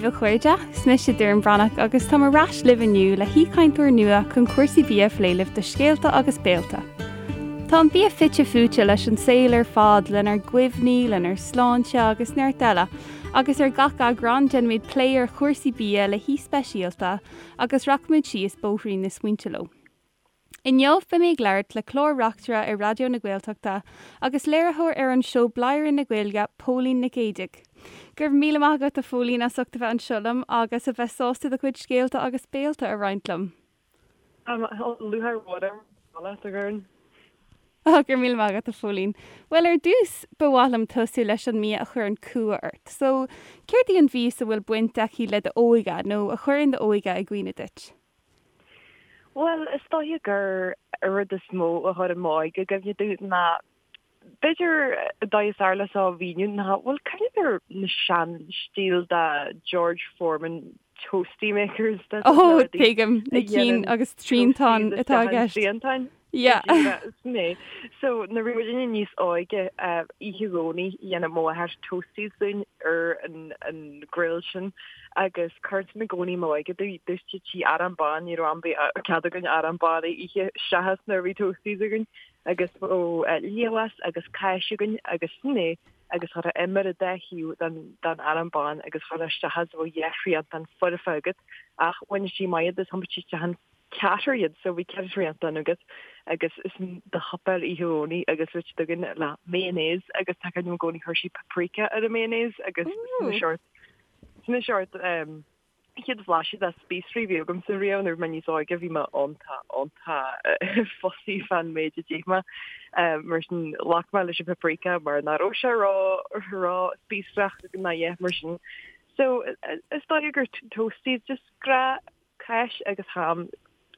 daoibh a chairde, is mise Doireann Breathnach agus táim ar ais libh inniu le haoichainteoir nua chun cúrsaí bia a phlé libh do Scéalta agus Béalta. Tá an bia fite fuaite leis an saol ar fad, lenár gcuimhní, lenár sláinte agus neart eile, agus ar gach eagrán déanaimid plé ar chúrsaí bia le haoi speisialta agus rachaimid síos bóithrín na smaointe leo. Inniu beidh mé ag labhairt le clár-reachtaire ar Raidió na Gaeltachta agus léiritheoir ar an seó Bladhaire na Gaeilge, Póilín Nic Géidigh. Go raibh míle maith agat a Phóilín as ucht a bheith anseo liom agus a bheith sásta do chuid scéalta agus béalta a roinnt liom. Lúcháir mhór orm a bheith leat, a Dhoireann. Go raibh míle maith agat a Phóilín. Bhuel ar dtús ba mhaith liom tosú leis an mbia a chuireann cumha ort. So, céard í an mhias a bhfuil baint aici le d'óige nó a chuireann d'óige i gcuimhne duit? Bhuel, is dóiche gur an rud is mó a chuireann m'óige i gcuimhne domh ná, b'fhéidir, an dóigh is fearr le seo a mhíniú ná, bhuel, cuimhním ar na sean-stíl de George Foreman toastie makers, na Ó, rudaí tuigim, na a cinn dhéanann agus triantán toasties atá i isteach an gceist. triantáin. Yeah. Sin é. So, nuair a bhí muidinne níos óige, oíche Dhomhnaigh, dhéanadh mo mháthair toasties dúinn ar an grill sin agus chuir sin i gcónaí m'óige d'úsáidtí arán bán, ní raibh am bith cead againn arán bán a ithe seachas nuair a bhí toasties againn agus bheadh liamhás agus cáis againn agus sin é agus chuirfeá im ar an dá thaobh den arán bán agus chuirfeá isteach as bheadh dhá thriantán foirfe agat ach bhain sí maith iad is thiompaigh sí isteach an ceathrar iad so bhí ceithre thriantán agat agus sin do shuipéar oíche Dhomhnaigh agus bhí siad againn le mayonnaise agus tá cuimhne agam i gcónaí chuir sí paprika ar an mayonnaise agus sin an seort sin an seort um, chéad bhlaiseadh de spíosraí a bhí agamsa riamh nuair a bhí mé níos óige bhí mé iontach iontach fussy fán méid a d'ith mé um, mar sin ghlac mé leis an paprika mar nach raibh sé ró ró spíosrach ná a dhath mar sin so is dóigh gur toasties just gra Cáis agus ham,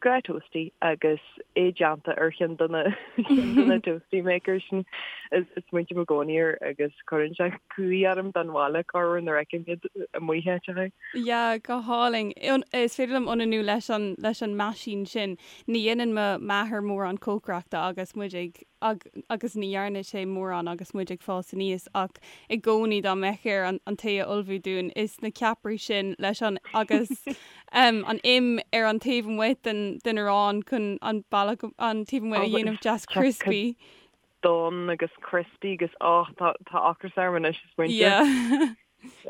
gnáth toastie agus é déanta ar cheann de na ceann de na toastie makers sin. Is smaointím i gcónaí air agus cuireann sé cumhaidh orm don bhaile corruair nuair a fheicim iad amuigh áiteacha. Yeah, go hálainn. Is féidir liom ionannú leis an leis an meaisín sin. Ní dhéanann mo m'athair mórán cócaireachta agus muid ag agus ní dhearna sé mórán agus muid ag fás aníos ach i gcónaí dá mbeadh air an an tae a ullmhú dúinn is na ceapairí sin leis an agus an im ar an taobh amuigh den den arán chun an bealach an taobh amuigh a dhéanamh deas crispy. Donn agus crispy agus oh tá tá ocras orm anois is muintir. Yeah.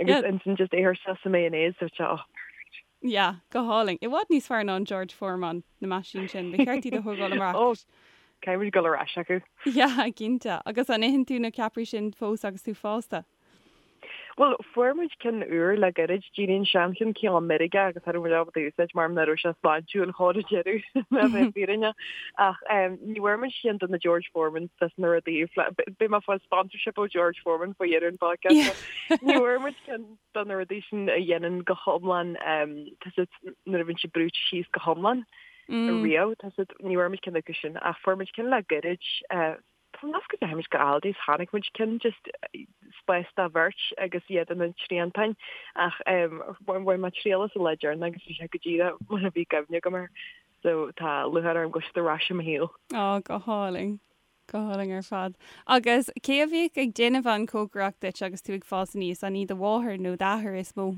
Agus ansin just é a chur isteach sa mayonnaise so oh perfect. Yeah, go hálainn. I bhfad níos fearr ná an George Foreman, na meaisín sin. Ba cheart iad a thógáil amach. Oh, caithfidh muid dul ar ais acu. Yeah, cinnte. Agus an itheann tú na ceapairí sin fós agus tú fásta? Bhuel, fuair muid ceann úr le gairid, d'éirigh an seancheann cineál meirgeach agus cha raibh muid ábalta a úsáid mar nach raibh sé sláintiúil chor ar deireadh, le bheith fírinneach. Ach ní bhfuair muid ceann de na George Foremans des na rudaí, beidh mé ag fáil sponsorship ó George Foreman faoi dheireadh an podcast seo. Ní bhfuair muid ceann de na rudaí sin a dhéanann go hiomlán, tá a fhios agat nuair a bhíonn sé brúite síos go hiomlán riamh, tá a fhios agat, ní bhfuair muid ceann acu sin ach fuair muid ceann le gairid, tá mé go ndeachaigh muid go Aldi is chonaic muid ceann just spás do bheirt agus iad ina dtriantáin ach bhain mé triail as an lá deireanach agus bhí sé go díreach mar a bhí cuimhne agam air so tá lúcháir orm go bhfuil siad ar ais i mo shaol. Á, go hálainn. Go hálainn ar fad. Agus cé a bhíodh ag déanamh an chócaireacht duit agus tú ag fás aníos, an í do mháthair nó d'athair is mó?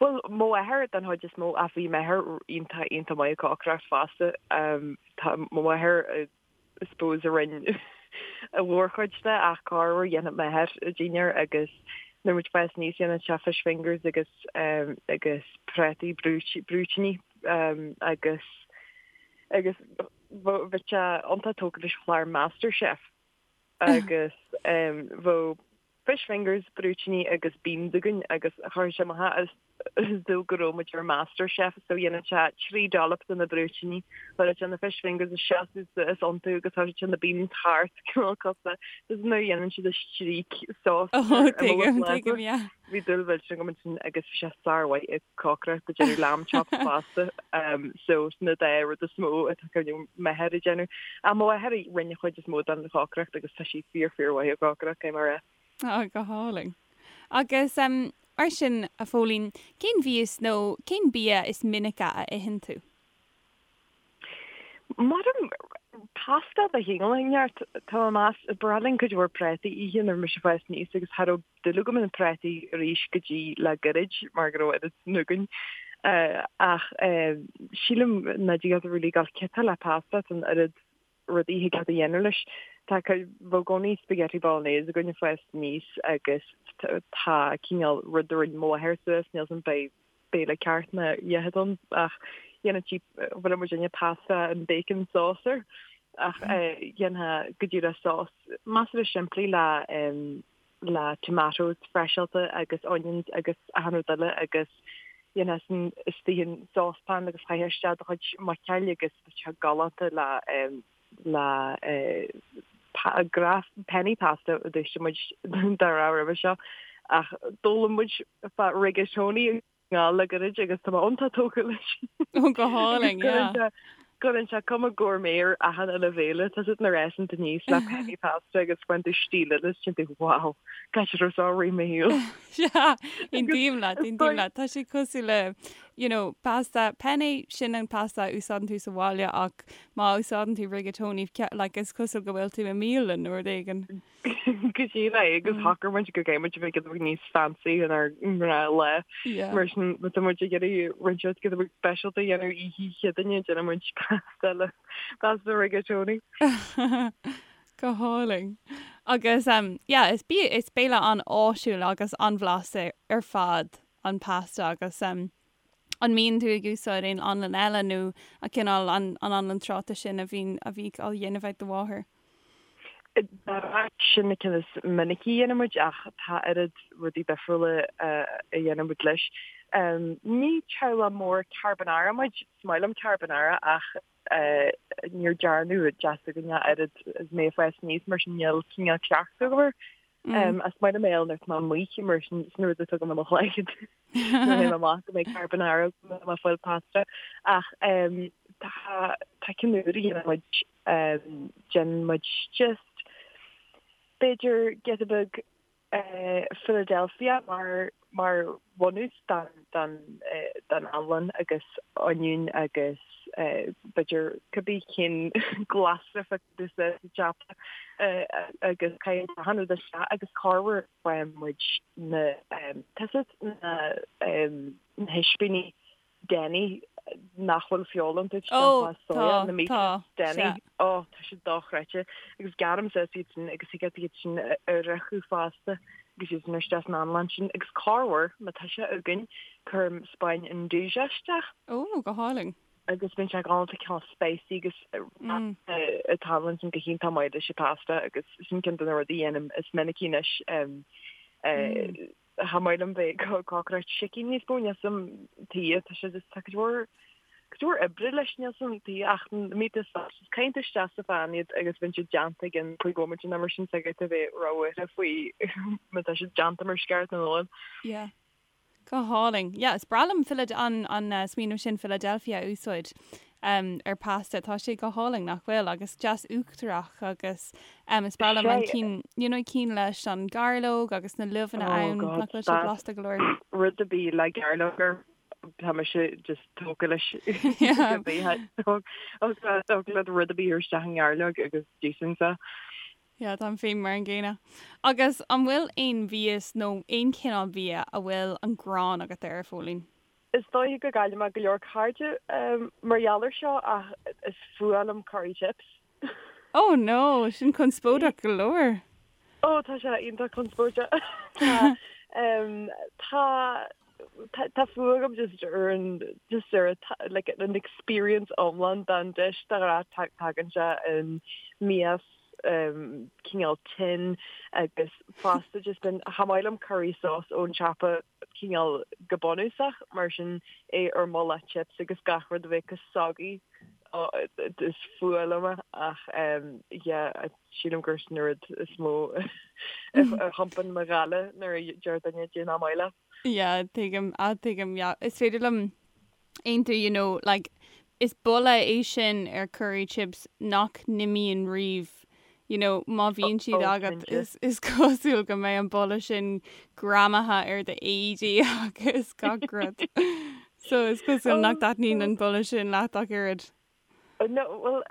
Bhuel, mo mháthair den chuid is mó ach bhí m'athair iontach, iontach maith ag cócaireacht fosta. Tá mo mháthair, I suppose, a rinne a mhórchuid de ach corruair dhéanadh m'athair dinnéar agus nuair muid ag fás aníos dhéanadh sé fish fingers agus agus prátaí brúitíní agus agus Bhí sé iontach tógtha leis an chlár MasterChef agus bheadh fish fingers, brúitíní agus beans againn agus chuir sé amach as dúil go raibh muid ar MasterChef so dhéanadh sé 3 dollop de na brúitíní, chuireadh sé na fish fingers isteach is iontu agus chuireadh sé na beans thart cineál cosúil le nuair a dhéanann siad an streak sauce ar imeall an phláta. Bhí dúil mhillteanach agam ansin agus bhí sé sármhaith ag cócaireacht ag déanamh lamb chops fosta so sin na dá rud is mó atá cuimhne agam m'athair ag déanamh. Ach mo mháthair a rinne an chuid is mó den chócaireacht agus tá sí fíor fíor mhaith ag cócaireacht, caithfidh mé a rá. Á, go hálainn. Agus mar sin, a Phóilín, cén mhias nó cén bia is minice a itheann tú? Maram. Pasta de chineál inteacht. Tá mé meas, ba bhreá linn cuid mhór prátaí a ithe nuair a bhí mise ag fás aníos agus cha raibh dúil agam in prátaí arís go dtí le gairid mar go raibh oiread sin againn. Ach sílim nach dtig leat really gabháil ciotach le pasta, tá an oiread rudaí a thig leat a dhéanamh leis. Tá bhí i gcónaí spaghetti bolognese againn ag fás aníos agus tá cineál rud a rinne mo mháthair suas, níl 's a'm beidh béile ceart nó a dhath ann ach dhéanadh sí bhfuil muid ina pasta and bacon sauce air ach dhéanfá go díreach sós measartha simplí le le tomatoes freiseáilte agus onions agus achan rud eile agus dhéanfá san istigh in saucepan agus chaithfeá isteach do chuid muiceoil agus bheadh sé galánta le le gra penne pasta a d'úsáid muid dá rá roimhe seo ach d'fhoghlaim muid fá rigatoni i nGall le gairid agus tá mé iontach tógtha leis. Ó go hálainn, yeah. Cuireann sé cuma gourmet ar achan uile bhéile, tá siad ina rás aníos le penne pasta agus faigheann tú stíl eile is téann tú wow, cá raibh seo i rith mo shaoil. Sea, aontaím leat, aontaím leat. Tá sé cosúil le you know, pasta, penne, sin an pasta a úsáideann tú sa bhaile ach má úsáideann tú rigatoni, like, is cosúil go bhfuil tú i mbialann nó rud éigin. Go díreach é agus shocair muid go gcaithfidh muid a bheith giota beag níos fancy inár ngnáthlá. Mar sin má tá muid ag iarraidh rud inteacht giota beag speisialta a dhéanamh oíche Chéadaoine, déanann muid pasta le pasta rigatoni. Go hálainn. Agus um, yeah, is bia, is béile an-áisiúil agus an-bhlasta ar fad an pasta agus an mbíonn tú ag úsáid aon anlann eile nó an cineál an anlann tráta sin a bhíonn a bhíodh á dhéanamh ag do mháthair? Sin na cinn is minicí a dhéanann muid ach tá oiread rudaí difriúla a dhéanann muid leis. Ní teaghlach mór carbonara muid, is maith liom carbonara ach níor dearnadh i dteach s'againne oiread is mé ag fás aníos mar sin níl cineál cleachtadh agam air. Is maith liom é nuair atá mé amuigh mar sin sin rud a tugaim i mo chloigeann nuair a théim amach go mbeidh carbonara agam má fáil pasta. Ach tá tá ceann úr a dhéanann muid déanann muid just b'fhéidir giota beag Philadelphia mar mar bhunús don don don anlann agus oinniún agus b'fhéidir cibé cén glasra a fheiceann tú sa tsiopa agus caitheann achan rud isteach agus corruair faigheann muid na tá 's agat na na hispíní Denny nach bhfuil feoil iontu Ó, tá, na tá, Denny. Ó, tá siad dochreidte. Agus gearraim suas iad sin agus thig leat iad sin a fhriochadh fosta agus iad sin isteach san anlann sin. Agus corruair, má tá sé againn, cuirim spáin nduja isteach. Ó, go hálainn. Agus bíonn sé galánta cineál spicy agus an t-anlann sin go hiontach maith leis an pasta agus sin ceann de na rudaí a dhéanaim is minicí anois. Cha maith liom bheith ag cócaireacht sicín níos mó, níl 's a'm tuige, tá sé just, tá cuid mhór, cuid mhór oibre leis, níl 's a'm tuige ach na meat sausages, caitheann tú isteach sa phan iad agus bíonn siad déanta i gcionn 5 bhomaite nó mar sin, so caithfidh tú bheith róbhuartha faoi má tá siad déanta mar is ceart nó nach bhfuil. Yeah. Go hálainn. Yeah, is breá liom Philad-, an, an smaoineamh sin Philadelphia a úsáid. ar pasta. Tá sé go hálainn, nach bhfuil? Agus deas uachtarach agus is breá liom an cinn, you know, cinn leis an gairleog agus na luibheanna ann, nach bhfuil sé blasta go leor? Rud ar bith le gairleog air, tá mise just tógtha leis. Tógtha le rud ar bith isteach i ngairleog agus d'íosfainnse. Yeah, táim féin mar an gcéanna. Agus an bhfuil aon mhias nó aon chineál bia a bhfuil an ghráin agat air, a Phóilín? Is dóiche go gcaillfidh mé go leor cairde mar gheall air seo ach is fuath liom curry chips. Oh no, sin conspóideach go leor. Oh tá sé iontach conspóideach. Tá tá tá fuath agam just ar an just ar like an experience iomlán den dish de ghnáth tagann sé in mias cineál tin agus fosta just bíonn cha maith liom curry sauce ón tsiopa cineál go bunúsach, mar sin é ar mullach chips agus gach rud a bheith chomh soggy is fuath liom é ach yeah sílim gur sin an rud is mó a thiompaíonn mo ghála nuair a deir duine cad é nach maith leat. Yeah tuigim, ah tuigim yeah is féidir liom aontú you know like is boladh é sin ar curry chips nach n-imíonn riamh you know má bhíonn siad Oh, agat cinnte. is is cosúil go mbeidh an boladh sin greamaithe ar do éadaí agus gach rud. So is cosúil nach dtaitníonn an boladh sin leat ach oiread. No, well,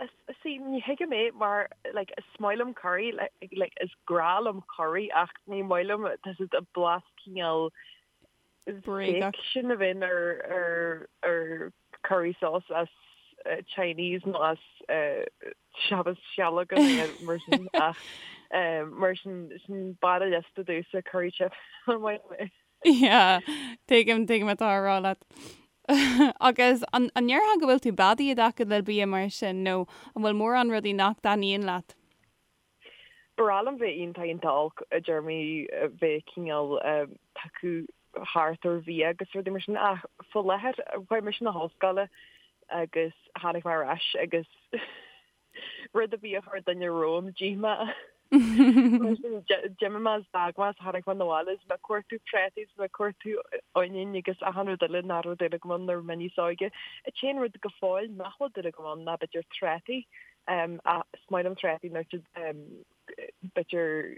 see, ní thuigim é mar, like, is maith liom curry, like, is grá liom curry ach ní maith liom tá siad a blas cineál Bréagach. fake sin a bhíonn ar, ar, ar curry sauce as Chinese nó as seachas sceallóga nó mar sin ach mar sin, sin barr an liosta domhsa curry chip, ní maith liom é. Yeah, tuigim, tuigim atá á rá leat. Agus an ndéarfá go bhfuil tú beadaí i dtaca le bia mar sin nó an bhfuil mórán rudaí nach dtaitníonn leat? Ba bhreá liom bheith iontach iontach olc i dtéarmaí bheith cineál tugtha thart ar bhia agus rudaí mar sin ach faoi láthair chuaigh mise 'na hollscoile agus tháinig mé ar ais agus Rud ar bith a chuir duine romham, d'ith mé. Mar sin, d'imigh mé is d'fhág mé is tháinig mé 'na bhaile is mé ag cuartú prátaí is mé ag cuartú oinniún agus achan rud eile nach raibh dúil agam ann nuair a bhí mé níos óige. An t-aon rud go fóill nach bhfuil dúil agam ann ná b'fhéidir trátaí. Ach is maith liom trátaí nuair siad b'fhéidir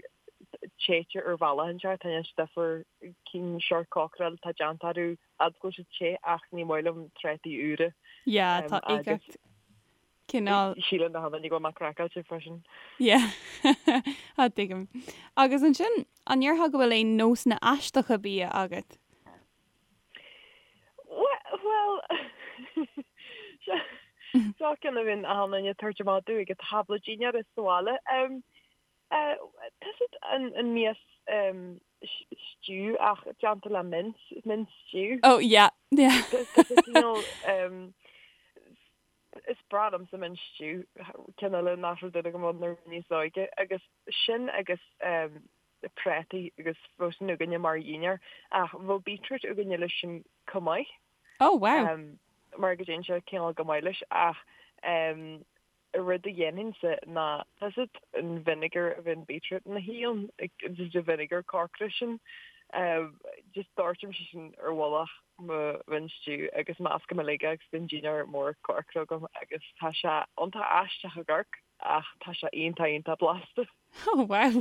téite ar bhealach inteacht, tá siad difear cinn seort cócaráil atá déanta orthu fhad go bhfuil siad te ach ní maith liom trátaí úra. Yeah, tá uigeacht cineál. Síleann na daoine go bhfuil mé craiceáilte freisin. Yeah. Ah, tuigim. Agus ansin, an ndéarfá go bhfuil aon nósanna aisteacha bia agat? Bhuel, seo ceann a bhíonn achan duine ag tabhairt amach domh ag an tábla dinnéara sa bhaile. Tá siad an mias stew ach déanta le mince, mince stew. Oh yeah, yeah. Tá sé cineál, is breá liomsa mince stew, ceann eile nach raibh dúil agam ann nuair a bhí mé níos óige, agus sin agus prátaí agus bheadh sin againne mar dhinnéar ach bheadh beetroot againne leis sin chomh maith. Oh wow. Mar go dtéann sé cineál go maith leis ach rud a dhéanfainnse ná tá 'fhios agat an vinegar a bhíonn beetroot ina shuí ann, just an vinegar corcra sin, just doirtimse sin ar mhullach mo mhince stew agus meascaim uilig é agus bíonn dinnéar mór corcra agam agus tá sé iontach aisteach ag amharc ach tá sé iontach iontach blasta. Oh wow!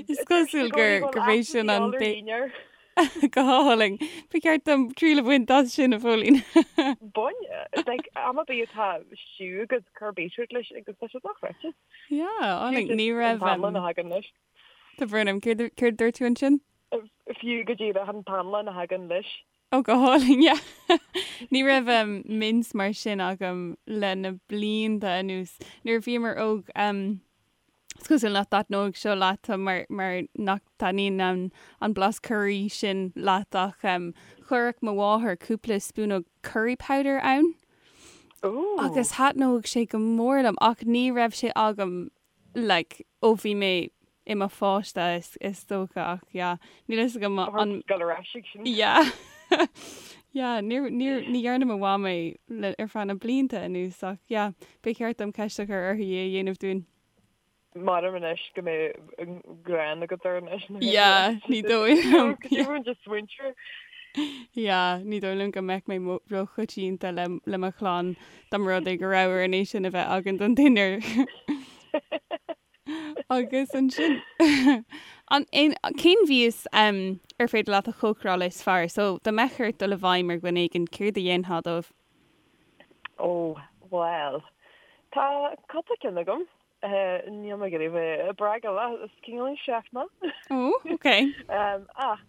Is cosúil gur gurb é sin an Go hálainn. Ba cheart dom triail a bhaint as sin, a Phóilín. Bain, like, am ar bith atá stew agat, cuir beetroot leis agus tá sé dochreidte. Yeah, álainn. Ní raibh. An t-anlann a thagann leis. Tá brón orm, céard a dúirt tú ansin? Fiú go díreach an t-anlann a thagann leis. Ó, go hálainn, yeah. Ní raibh mince mar sin agam le na blianta anuas. Nuair a bhíomar óg, is cosúil nach dtaitneoidh seo leat mar mar nach dtaitníonn an an blas curry sin leat ach chuirfeadh mo mháthair cúpla spúnóg curry powder ann. Ooh. Agus thaitneodh sé go mór liom ach ní raibh sé agam like ó bhí mé i mo pháiste is is dócha ach yeah níl fhios agam an Gabh ar ais ag sin. Yeah yeah níor níor ní dhearna mo mham é le ar feadh na blianta anuas ach yeah ba cheart dom ceist a chur uirthi é a dhéanamh dúinn. Maram anois go mbeidh an ghráin agat air anois. Yeah ní dóigh liom yeah. Just smaointiú. Yeah ní dóigh liom go mbeadh mé róchoitianta le le mo chlann dá mba rud é go raibh orainn é sin a bheith againn don dinnéar. Agus ansin an cén mhias ar féidir leat a chócaráil is fearr? So dá mbeadh ort dul i bhfeidhm ar dhuine éigin, céard a dhéanfá dóibh? Ó, bhuel, tá cúpla ceann agam. Níl mé ag iarraidh bheith ag bréagadh leat, is cineál chef mé. Ó, ok. Ach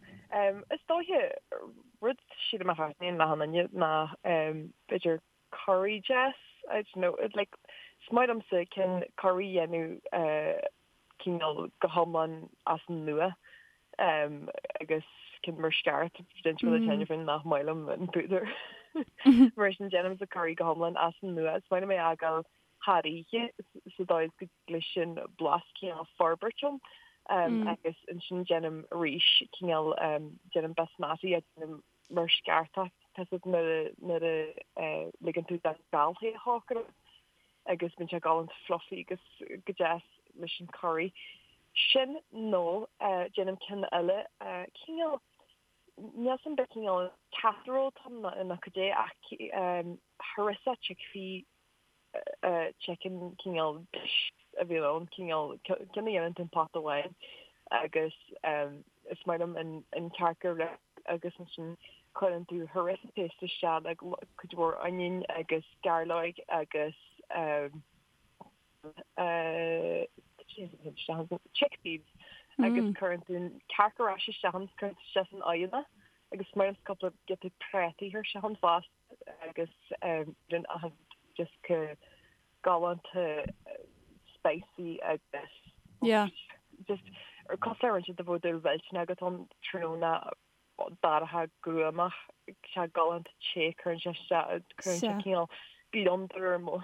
is dóiche rud sílim a thaitníonn le achan duine ná b'fhéidir curry deas, I don't know, like is maith liomsa cinn curry a dhéanamh cineál go hiomlán as an nua agus cinn mar sceart déanta le teine féin nach maith liom an púdar. Mar sin déanaimse curry go hiomlán as an nua, is maith liom é a fhágáil thar oíche sa dóigh is go dtig leis an blas cineál forbairt ann agus ansin déanaim arís cineál déanaim basmati a déanaim mar sceartach tá 'fhios agat nuair a ligeann tú don gal é a chócaráil agus bíonn sé galánta fluffy agus go deas leis an curry. Sin nó déanaim ceann eile cineál níl 'fhios a'm an cineál casserole atá ann nó cad é ach harissa chickpea chicken cineál dish a bhíonn ann, cineál ceann a dhéanann tú in pota amháin agus is maith liom an cearca a agus ansin. Cuireann tú harissa paste isteach le cuid mhór onion agus gairleoig agus chickpeas agus cuireann tú an cearc ar ais isteach ann, cuireann tú isteach san oigheann é agus is maith liomsa cúpla giota prátaí a chur isteach ann fosta agus bíonn achan rud just chomh galánta spicy agus just cosúil le roinnt de bhó dúil mhillteanach agat ann tráthnóna dorcha gruamach, sé galánta te, cuireann sé isteach, cuireann sé cineál gliondar ar mo,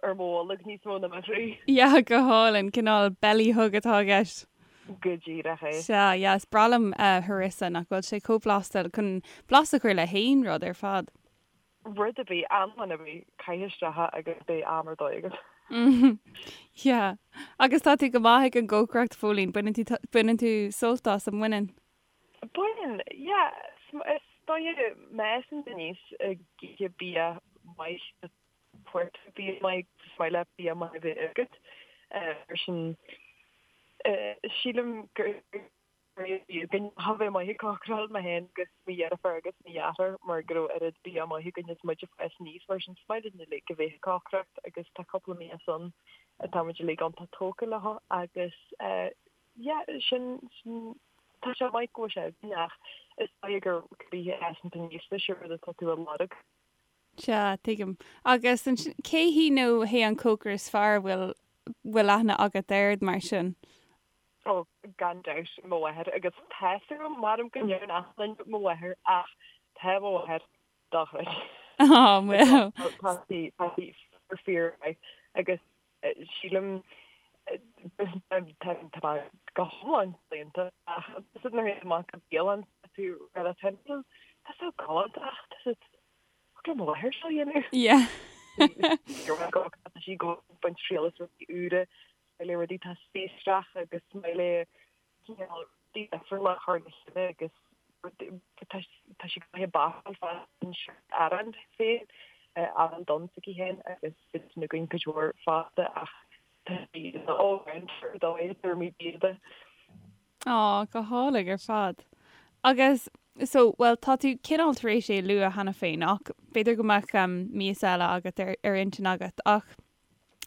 ar mo bholg níos mó ná mo chroí. Yeah, go hálainn, cineál belly hug atá i gceist. Go díreach é. Sea, yeah, is breá liom harissa, nach bhfuil sé chomh blasta, chun blas a chur le haon rud ar fad. Rud ar bith, anlann ar bith, caith isteach é agus beidh am ar dóigh agat. Yeah. Agus tá tú go maith ag an gcócaireacht, Phóilín, baineann tú, baineann tú sult as, an mbaineann? Baineann, yeah. Is dóigh má fhásann tú aníos ag ithe bia maith, fuair tú bia maith, is maith leat bia maith a bheith agat. Mar sin, sílim gur bhí againn a bheith maith ag cócaráil, mé féin agus mo dheirfiúr agus mo dheartháir mar go raibh oiread bia maith againn is muid ag fás aníos. Mar sin, is maith linn uilig a bheith ag cócaireacht agus tá cúpla mias ann atá muid uilig iontach tógtha leo agus Yeah, sin, sin, tá sé maith go bhfuil sé againn ach is dóigh gur cibé a fhásann tú aníos leis an rud atá tú a lorg. Sea, tuigim. Agus ansin, cé hí nó hé an cócaire is fearr a bhfuil, bhfuil aithne agat air mar sin? Ó, gan dabht, mo mháthair. Agus tá 'fhios agam, maram go ndeireann achan duine mo mháthair ach tá mo mháthair dochreidte. Á, bhuel. Tá sí, tá sí fíor, fíor mhaith agus Sílim, tá mé go hiomlán claonta ach is nuair a théann tú amach go bialann tá tú rud atá tá so galánta ach tá siad thig le mo mháthair seo a dhéanamh. Yeah. Tá sí ag baint triail as rudaí úra, is maith léi rudaí atá spíosrach agus is maith léi cineál rudaí difriúla a chur le chéile agus tá sí go maith ag bácáil fosta arán féin, arán donn s'aici féin agus bíonn sin againn cuid mhór fosta ach tá sí ina all-rounder ar dóigh i dtéarmaí bia de. Á, go hálainn ar fad. Agus, so, bhuel, tá tú cineál tar éis é a lua cheana féin ach b'fhéidir go mbeadh mias eile agat ar ar intinn agat ach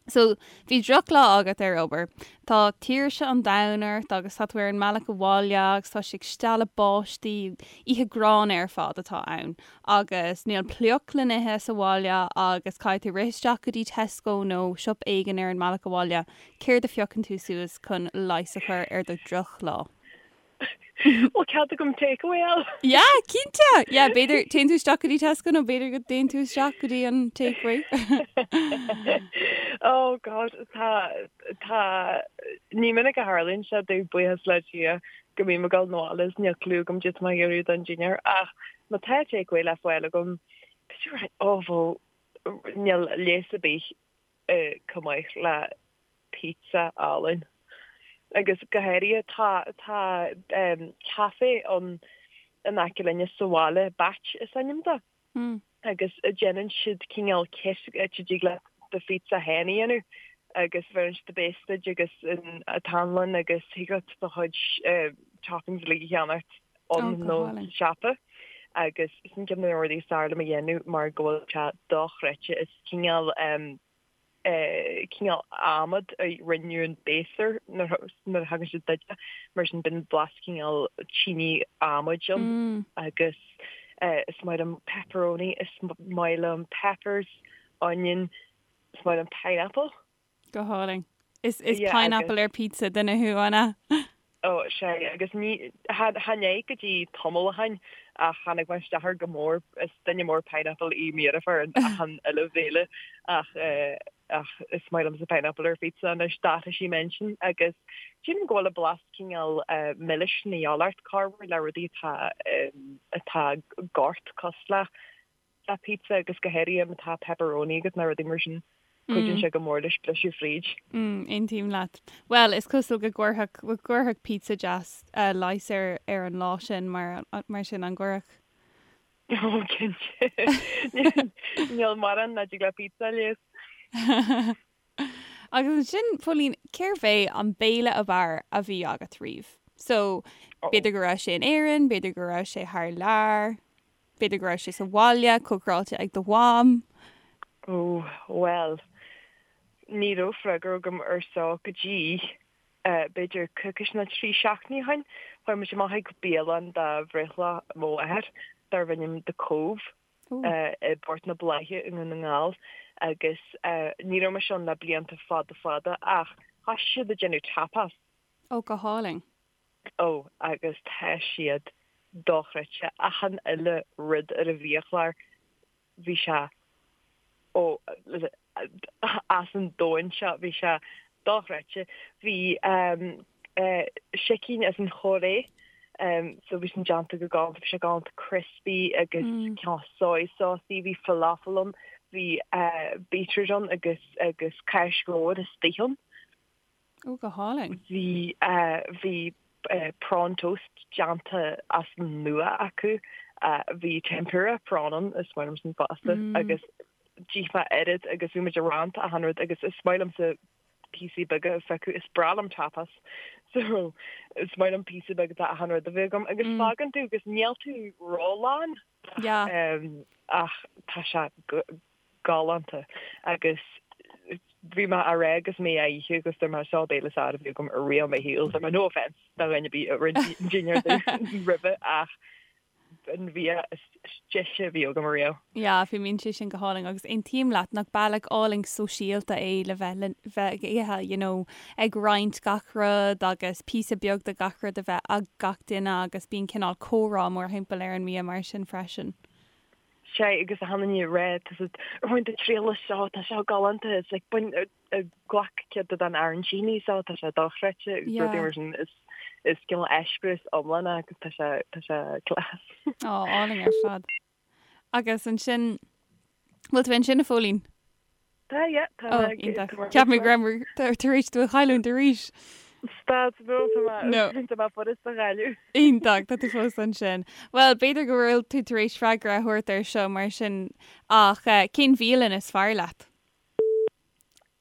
So, bhí drochlá agat ar obair. Tá tuirse an domhain ort agus tá tú ar an mbealach abhaile agus tá sé ag stealladh báistí, oíche gránna ar fad atá ann agus níl pioc le n-ithe sa bhaile agus caithfidh tú rith isteach go dtí Tesco nó siopa éigin ar an mbealach abhaile. Céard a phiocann tú suas chun leigheas a chur ar do dhrochlá? Bhfuil cead agam takeaway a fháil? Yeah, cinnte! Yeah, b'fhéidir, téann tú isteach go dtí Tesco nó b'fhéidir go dtéann tú isteach go dtí an takeaway. Oh God, tá, tá, ní minic a tharlaíonn sé domh, buíochas le Dia, go mbím ag dul 'na bhaile is níl clue agam cad tá mé ag iarraidh don dinnéar ach má tá takeaway le fáil agam, b'fhéidir, oh bhuel, níl leigheas ar bith chomh maith le pizza álainn. Agus go háirithe tá tá café ann in aice linne sa bhaile, Batch is ainm dó, agus déanann siad cineál kit áit a dtig leat do phizza féin a dhéanamh agus bheireann siad base duit agus an t-anlann agus thig leat do chuid toppings uilig a cheannacht ann nó sa siopa. Agus sin ceann de na rudaí is fearr liom a dhéanamh mar go bhfuil sé dochreidte. Is cineál cineál adhmad a rinneadh an base air nuair a thagann sé duit, mar sin bíonn blas cineál tine adhmaid ann agus is maith liom pepperoni, is maith liom peppers, onion, is maith liom pineapple. Go hálainn. Is is pineapple ar pizza duine thú, an ea? Ó, sea, agus ní, chan é go dtí tamall ó shin ach tháinig mé isteach air go mór, is duine mór pineapple í mo dheirfiúr in achan uile bhéile ach ach is maith liomsa pineapple ar phizza anois, d'athraigh sí m'intinn agus sílim go bhfuil an blas cineál milis na gheal ort corruair le rudaí atá atá gort cosúil le le pizza agus go háirithe má tá pepperoni agat nó rudaí mar sin, cuidíonn sé go mór leis briseadh fríd. Mm, aontaím leat. Bhuel, is cosúil go gcuirfeadh, go gcuirfeadh pizza deas leigheas ar, ar an lá sin mar, mar sin, an gcuirfeadh? Ó, cinnte. Níl mórán nach dtig le pizza a leigheas. Agus ansin, Póilín, cérbh é an béile ab fhearr a bhí agat riamh? So, b'fhéidir go raibh sé in Éirinn, b'fhéidir go raibh sé thar lear. B'fhéidir go raibh sé sa bhaile, cócaráilte ag do mham? Ó, bhuel, ní raibh freagra agam ar seo go dtí, b'fhéidir coicís nó 3 seachtainí ó shin. Chuaigh muid amach ag bialann do bhreithlá mo mháthar darbh ainm The Cove i bPort na Bláiche i nDún na nGall agus ní raibh mise ann le blianta fada fada ach thosaigh siad ag déanamh tapas. Ó, go hálainn. Ó, agus tá siad dochreidte. Achan uile rud ar an bhiachlár, bhí sé, ó, as an domhan seo, bhí sé dochreidte. Bhí sicín as an Chóiré, so bhí sin déanta go galánta, bhí sé galánta crispy agus cineál soy sauce-y, bhí falafel ann, bhí beetroot ann agus agus cáis mhór istigh ann. Ó, go hálainn. Bhí, bhí prawn toast déanta as an nua acu. Bhí tempura prawn ann, is maith liom sin fosta, agus d'ith mé oiread agus bhí muid ag roinnt achan rud agus is maith liomsa píosaí beaga a phiocadh, is breá liom tapas so is maith liom píosa beag de achan rud a bheith agam agus fágann tú agus níl tú rólán ach tá sé galánta agus bhí mé á rá agus mé á ithe agus dúirt mé seo béile is fearr a bhí agam ariamh i mo shaol dúirt mé no offence do dhuine ar bith a rinne dinnéar roimhe ach an bia is deise a bhí agam ariamh. Yeah, fuaimníonn sé sin go hálainn agus aontaím leat nach bealach álainn sóisialta é le bheith le bheith ag ithe, you know, ag roinnt gach rud agus píosa beag de gach rud a bheith ag gach duine agus bíonn cineál comhrá mórthimpeall ar an mbia mar sin freisin. Sea, agus achan duine ag rá, tá siad, ar bhain tú triail as seo, tá seo galánta, it's like, bain, glac cead den arancini seo, tá sé dochreidte, agus rudaí mar sin, is, is cineál eispéireas iomlán é agus tá sé, tá sé class. Ó, álainn ar fad. Agus ansin, bhfuil tú ansin a Phóilín? Tá, yeah, tá mé ag. Iontach. Cheap mé go raibh tar éis tú a chailliúint arís. Stad, no, tá mé, No. tá mé furast a chailleadh. Iontach, tá tú fós ansin. Bhuel, b'fhéidir go bhfuil tú tar éis freagra a thabhairt air seo mar sin, ach cén bhialann is fearr leat?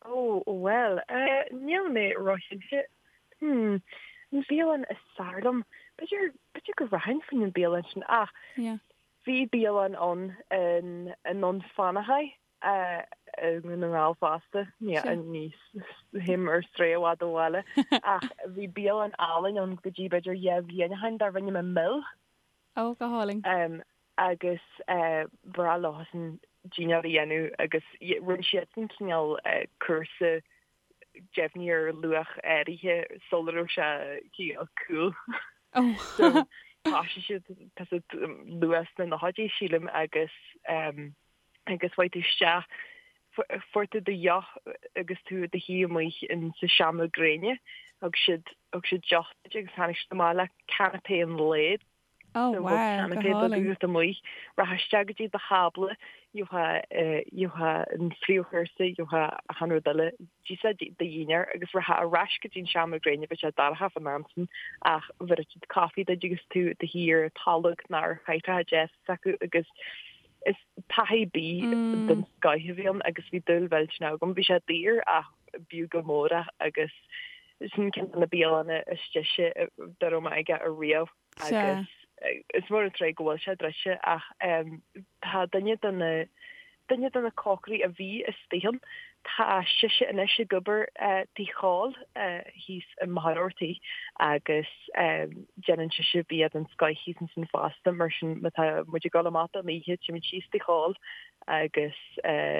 Ó, bhuel, níl mé róchinnte. Hmm, an bhialann is fearr liom? B'fhéidir, b'fhéidir go rachainn faoin bialann sin, ach Yeah. bhí bialann ann in, i nDún Fionnachaidh, i nDún na nGall fosta, ní théim ar strae i bhfad ó bhaile, ach bhí bialann álainn ann go dtí b'fhéidir 2 bhliain ó shin darbh ainm an Mill. Ó, go hálainn. Agus ba bhreá leosan dinnéar a dhéanamh agus rinne siadsan cineál cúrsa deimhnithe ar luach áirithe sula raibh sé cineál cool. So thosaigh siad, tá siad luath sna nóchaidí sílim agus agus chuaigh tú isteach, fuair tú do dheoch agus tú i do shuí amuigh in sa seomra gréine, thug siad, thug siad deoch duit agus tháinig siad amach le canapé an lae. Oh So wow, bheadh go canapé beag hálainn. agat amuigh, rachfá isteach go dtí do thábla, gheofá, gheofá an phríomhchúrsa, gheofá achan rud eile, d'íosfá do dhinnéar agus rachfá ar ais go dtí an seomra gréine, bheadh sé dorcha fán am sin ach bhéarfadh siad caife duit agus tú i do shuí ar tolg nó ar chathaoireacha deasa s'acu agus Is taithí bídh den scoith a bhí ann agus bhí dúil mhillteanach agam. Bhí sé daor ach b'fhiú go mór é agus sin ceann de na bialanna is deise dá raibh mé aige ariamh agus is mór an truaigh go bhfuil sé druidte ach tá duine de na duine de na cócairí a bhí istigh ann, tá sise anois ag obair Tigh Chóil thíos i Machaire Rabhartaigh agus déanann sise bia den scoith thíos ansin fosta, mar sin má tá muid ag dul amach don oíche, téimid síos Tigh Chóil agus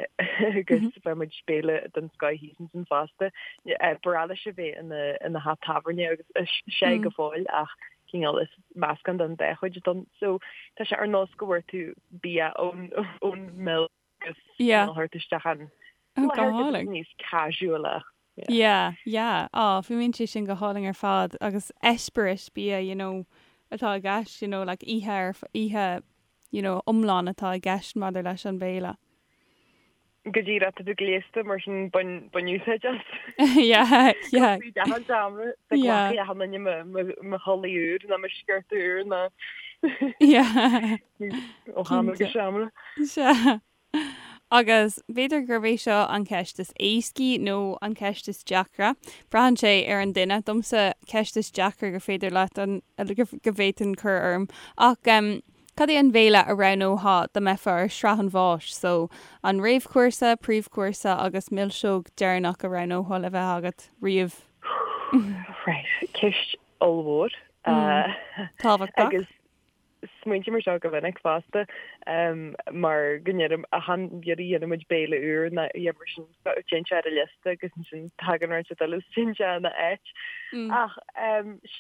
agus faigheann muid béile den scoith thíos ansin fosta. Ba bhreá leis a bheith ina ina theach tábhairne agus is sé go fóill ach cineál is meascán den dá chuid ann. So tá sé ar nós go bhfuair tú bia ón ón Mill agus Yeah. cineál thabhairt isteach an Go láthair go hálainn. níos casual Yeah. Yeah, yeah. Á, fuaimníonn sé sin go hálainn ar fad agus eispéireas bia, you know, atá i gceist, you know, like oíche ar, oíche, you know, iomlán atá i gceist maidir leis an bhéile. Go díreach, tá tú gléasta mar sin bain, bain úsáid as. Yeah, yeah. Go dtí an seomra, sa Yeah. glacfaidh achan duine mo, mo, mo chulaith úr nó mo sciorta úr nó Yeah. ó sheomra go Cinnte. seomra. Sea. Agus b'fhéidir gurb é seo an cheist is éascaí nó an cheist is deacra. Braitheann sé ar an duine. Domsa, ceist is deacra gur féidir leat an, go bhféadfainn cur orm. Ach. Cad é an bhéile a roghnófá dá mbeifeá ar shraith an bháis? So, an réamhchúrsa, príomhchúrsa agus milseog deireanach a roghnófá le bheith agat riamh? Right, ceist ollmhór. Tábhachtach. Agus smaointím ar seo go minic fosta mar go ndeirim achan iarraidh a dhéanann muid béile úr nó a dhath mar sin téann sé ar an liosta agus ansin tagann rud eile is téann sé ina áit. Ach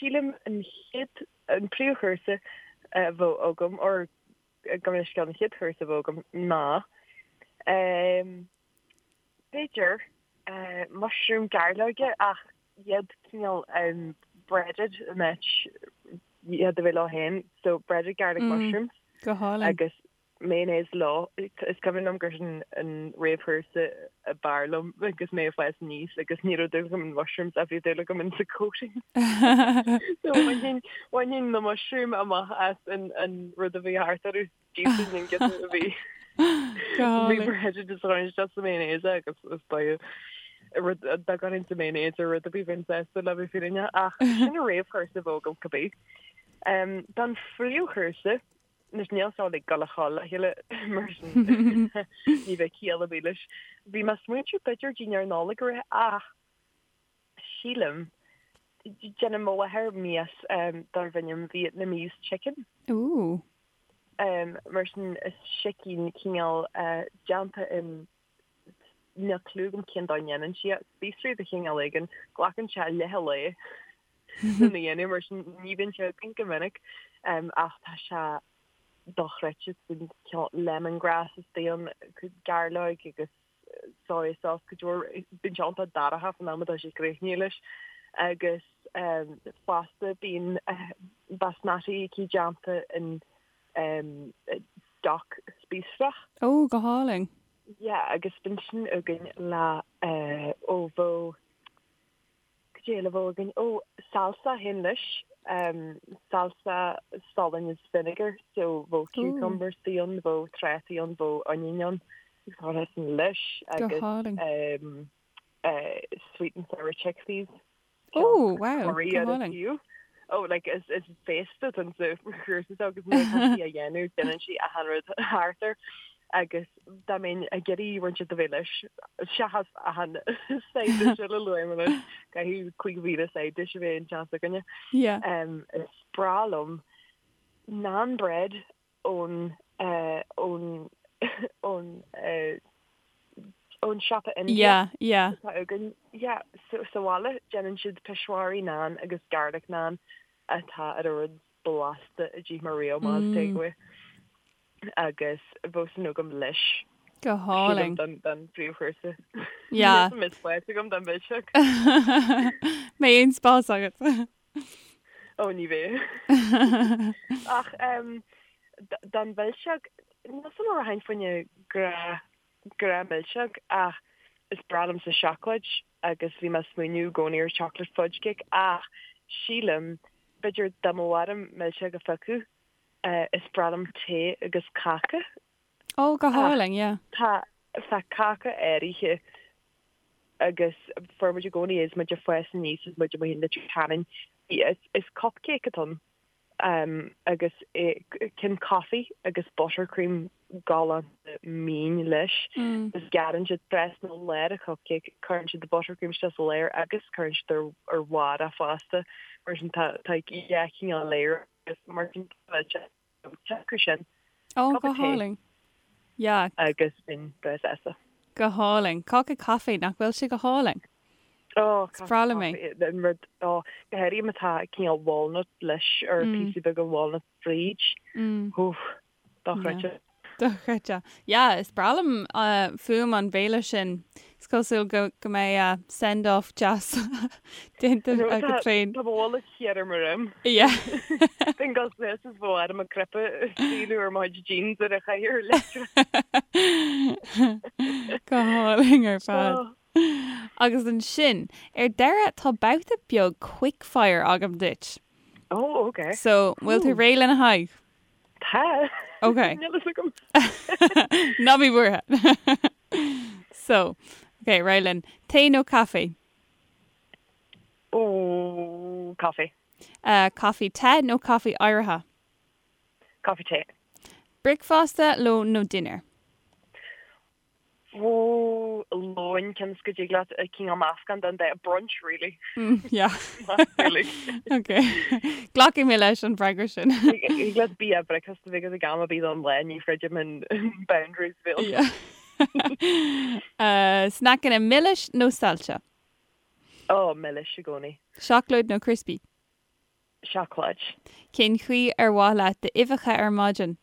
sílim an chéad An príomhchúrsa a bheadh agam, or gabh mo leithscéal, an chéad chúrsa a bheadh agam ná, b'fhéidir, mushroom gairleoige ach iad cineál breaded in áit iad a bheith leo féin, so breaded garlic mushrooms. Go hálainn. Agus mayonnaise leo. Is cuimhin liom gur sin an réamhchúrsa ab fhearr liom agus mé ag fás aníos agus ní raibh dúil agam in mushrooms ach bhí dúil agam in sa coating. So bhainfinn, bhainfinn na mushroom amach as an, an rud a bhí thart orthu, d'íosfainn an giota a bhí bhí breaded is chuirfinn isteach sa mayonnaise é agus is dóigh rud dá gcuirfinn sa mayonnaise ar rud ar bith bheinn sásta le bheith fírinneach ach sin an réamhchúrsa a bheadh agam cibé. Don phríomhchúrsa, Anois níl seo ag dul a chodladh le chéile mar sin ní bheidh ciall ar bith leis. Bhí mé ag smaointiú b'fhéidir dinnéar Nollag a rith ach sílim, déanann mo mháthair mias darb ainm Vietnamese chicken. Ooh. Mar sin is sicín cineál déanta in, níl cliú agam cén dóigh a ndéanann sí é, spíosraí de chineál éigin, glacann sé leath an lae lena dhéanamh mar sin ní bhíonn sé againn go minic ach tá sé dochreidte, cineál lemongrass istigh ann, gairleoig agus soy sauce cuid mhór, bíonn sé iontach dorcha faoin am atá sé críochnaithe leis agus fosta bíonn basmati aici déanta in stoc spíosrach. Ó, go hálainn. Yeah, agus bíonn sin againn le ó bheadh Cad é eile a bheadh againn? Ó, salsa féin leis. Salsa salainn is vinegar, so bheadh cucumbers ann, bheadh trátaí ann, bheadh onion ann, agus chuirfeá sin leis agus Go hálainn. sweet and sour chickpeas. Ó, wow, go hálainn. Oh, like, is, is féasta atá sa chúrsa seo agus nuair atá sí á dhéanamh, déanann sí achan rud thart air agus dá mbeinn ag iarraidh roinnt a bheith leis, seachas achan side dish eile a luaigh mé anois, caithfidh 5,000 side dish a bheith in teach s'againne. Yeah. Is breá liom naan bread ón ón ón ón siopa Indiach Yeah, yeah. atá againn. Yeah, so sa bhaile déanann siad peshwari naan agus garlic naan atá ar an rud blasta a d'ith mé riamh amach as takeaway. Agus bheadh sin agam leis. Go hálainn. Sílim don phríomhchúrsa. Yeah. Níl mé spás agam don mhilseog. Mbeidh aon spás agat. Ó ní bheidh. Ach don mhilseog, níl 'fhios a'm an rachainn fá choinne grá grá milseog ach is breá liomsa seacláid agus bhí mé ag smaoineamh i gcónaí ar chocolate fudge cake ach sílim b'fhéidir dá mbeadh orm milseog a phiocadh is breá liom tae agus cáca. Ó go hálainn, yeah. Tá tá cáca áirithe agus fuair muid i gcónaí é is muid ag fás aníos is muid amuigh in Leitir Ceanainn. Is cupcake atá ann agus cinn coffee agus buttercream galánta mín leis. Agus gearrann siad trasna lár an cupcake, cuireann siad buttercream isteach sa lár agus cuireann siad ar bharr é fosta. Mar sin tá tá dhá chineál layer agus mar sin tá sé Deacair sin. Ó, go hálainn. Yeah. Agus bheinn breá sásta. Go hálainn. Cáca caife, nach bhfuil sé go hálainn? Ó, Is breá liom é. An rud, ó, go háirithe má tá cineál walnut leis or píosa beaga walnut fríd. Oof, dochreidte. Dochreidte. Yeah, is breá liom fuaim an bhéile sin. Is cosúil go go mbeidh send off deas déanta agat féin. Tá mo bholg thiar ar mo dhroim. Yeah. Bheinn ag dul suas is bheadh orm an cnaipe a scaoileadh ar mo chuid jeans ar an chathaoir leictreach. Go hálainn ar fad. Agus ansin, ar deireadh, tá babhta beag quickfire agam duit. Oh, okay. So, bhfuil tú réidh lena haghaidh? Tá. Ok. Níl fhios agam. Ná bí buartha. So, ok, réidh linn. Tae nó caife? Ó, caife. Uh, caife te nó caife oighrithe? Caife te. Bricfeasta, lón nó dinnéar? Ó, lón, cionn is go dtig leat cineál meascán den dá, brunch really. Yeah. Really. Ok. Glacfaidh mé leis an bhfreagra sin. Thig leat bia bricfeasta a bheith agat ag am ar bith don lá, ní throidim an boundaries a bheadh. Yeah. Sneaiceanna milis nó saillte? Ó, milis i gcónaí. Seacláid nó crispy? Seacláid. Cén chaoi ar mhaith leat d'uibheacha ar maidin?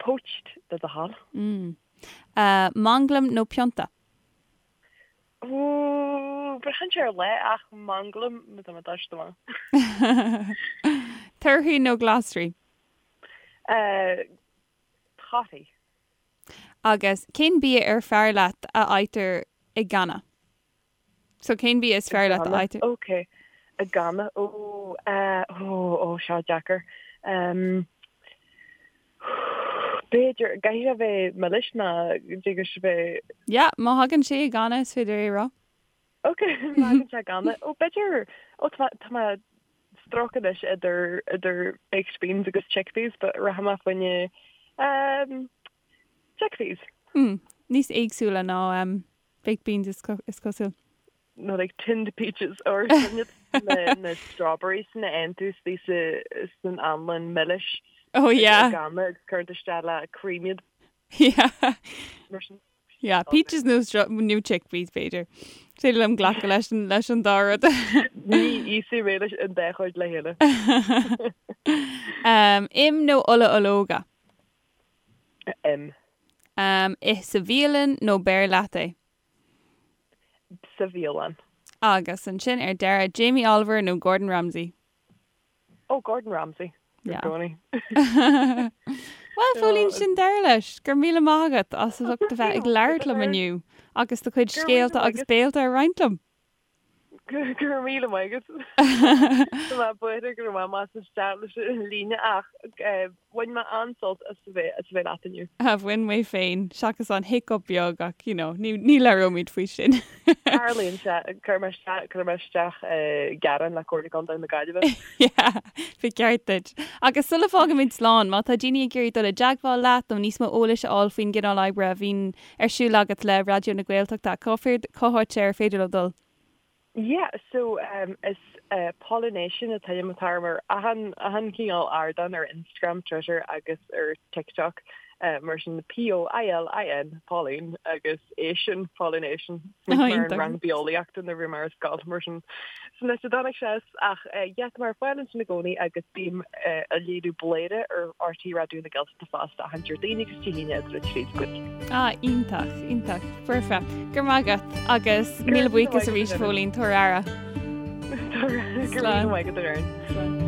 Poached, le do thoil. Manglam nó pionta? Ooh, braitheann sé ar lá ach manglam má tá mé doirte amach. Torthaí nó glasraí? Torthaí. Agus cén bia ar fearr leat a fhaightear i gcanna? So cén bia is fearr leat a fhaightear? Ok. I gcanna. Ó, eh, ó, ó, seo deacair. Em, b'fhéidir, caithfidh sé a bheith milis nó dtig leis a bheith. Yeah, má thagann sé i gcanna is féidir é a rá. Ok, má thagann sé i gcanna. Ó, b'fhéidir, ó, tá mé, tá mé struck anois idir, idir baked beans agus chickpeas, but rachaidh mé fá choinne, em, Chickpeas. Hmm. Níos éagsúla ná baked beans is cosúil. Nó like tinned peaches or sin na na strawberries sin a fhaigheann tú istigh sa san anlann milis. Oh yeah. I gcanna agus cuireann tú isteach le cream iad. Yeah. Mar sin. Yeah, peaches nó nó chickpeas b'fhéidir. Is féidir liom glacadh leis an leis an dá rud. Ní íosfaidh mé leis an dá chuid le chéile. Um, im nó ola ológa? Im. Ith sa bhialann nó beir leat é? Sa bhialann. Agus ansin ar deireadh, Jamie Oliver nó Gordon Ramsay? Oh, Gordon Ramsay. I gcónaí. Bhuel, Phóilín, sin deireadh leis. Go raibh míle maith agat as ucht a bheith ag labhairt liom inniu agus do chuid scéalta agus béalta a roinnt liom. Go raibh míle maith agat. Tá mé buartha go raibh mé amach isteach leis an líne ach bhain mé an-sult as a bheith as a bheith leat inniu. Bhain mé féin, seachas an hiccup beag ach you know, ní ní labhróimid faoi sin. Tarlaíonn sé, cuirfidh mé isteach, cuirfidh mé isteach gearán le Comhairle Contae na Gaillimhe. Yeah, ba cheart duit. Agus sula bhfágaimid slán, má tá daoine ag iarraidh dul i dteagmháil leat nó níos mó eolais a fháil faoin gcineál oibre a bhíonn ar siúl agat le Raidió na Gaeltachta, cá cá háit ar féidir leo dul? Yeah, so um, is uh, Pollination an t-ainm atá orm ar achan, achan cineál ardán ar Instagram, Twitter agus ar TikTok. Uh, mar sin P-O-I-L-I-N, Pauline, agus ation, Pollination. Oh, mar an rang bitheolaíochta nuair a bhí mé ar scoil mar sin. Sin áit a dtáinig sé as ach uh, yeah, tá mé ar fáil ansin i gcónaí agus bím uh, ag léiriú Bladhaire ar RTÉ Raidió na Gaeltachta fosta achan Déardaoin agus Dé hAoine idir 3 is 5. Ah, iontach, iontach. Foirfe. Go raibh maith agat agus míle buíochas arís Phóilín, tabhair aire. Go raibh míle maith agat, a Erin. Slán.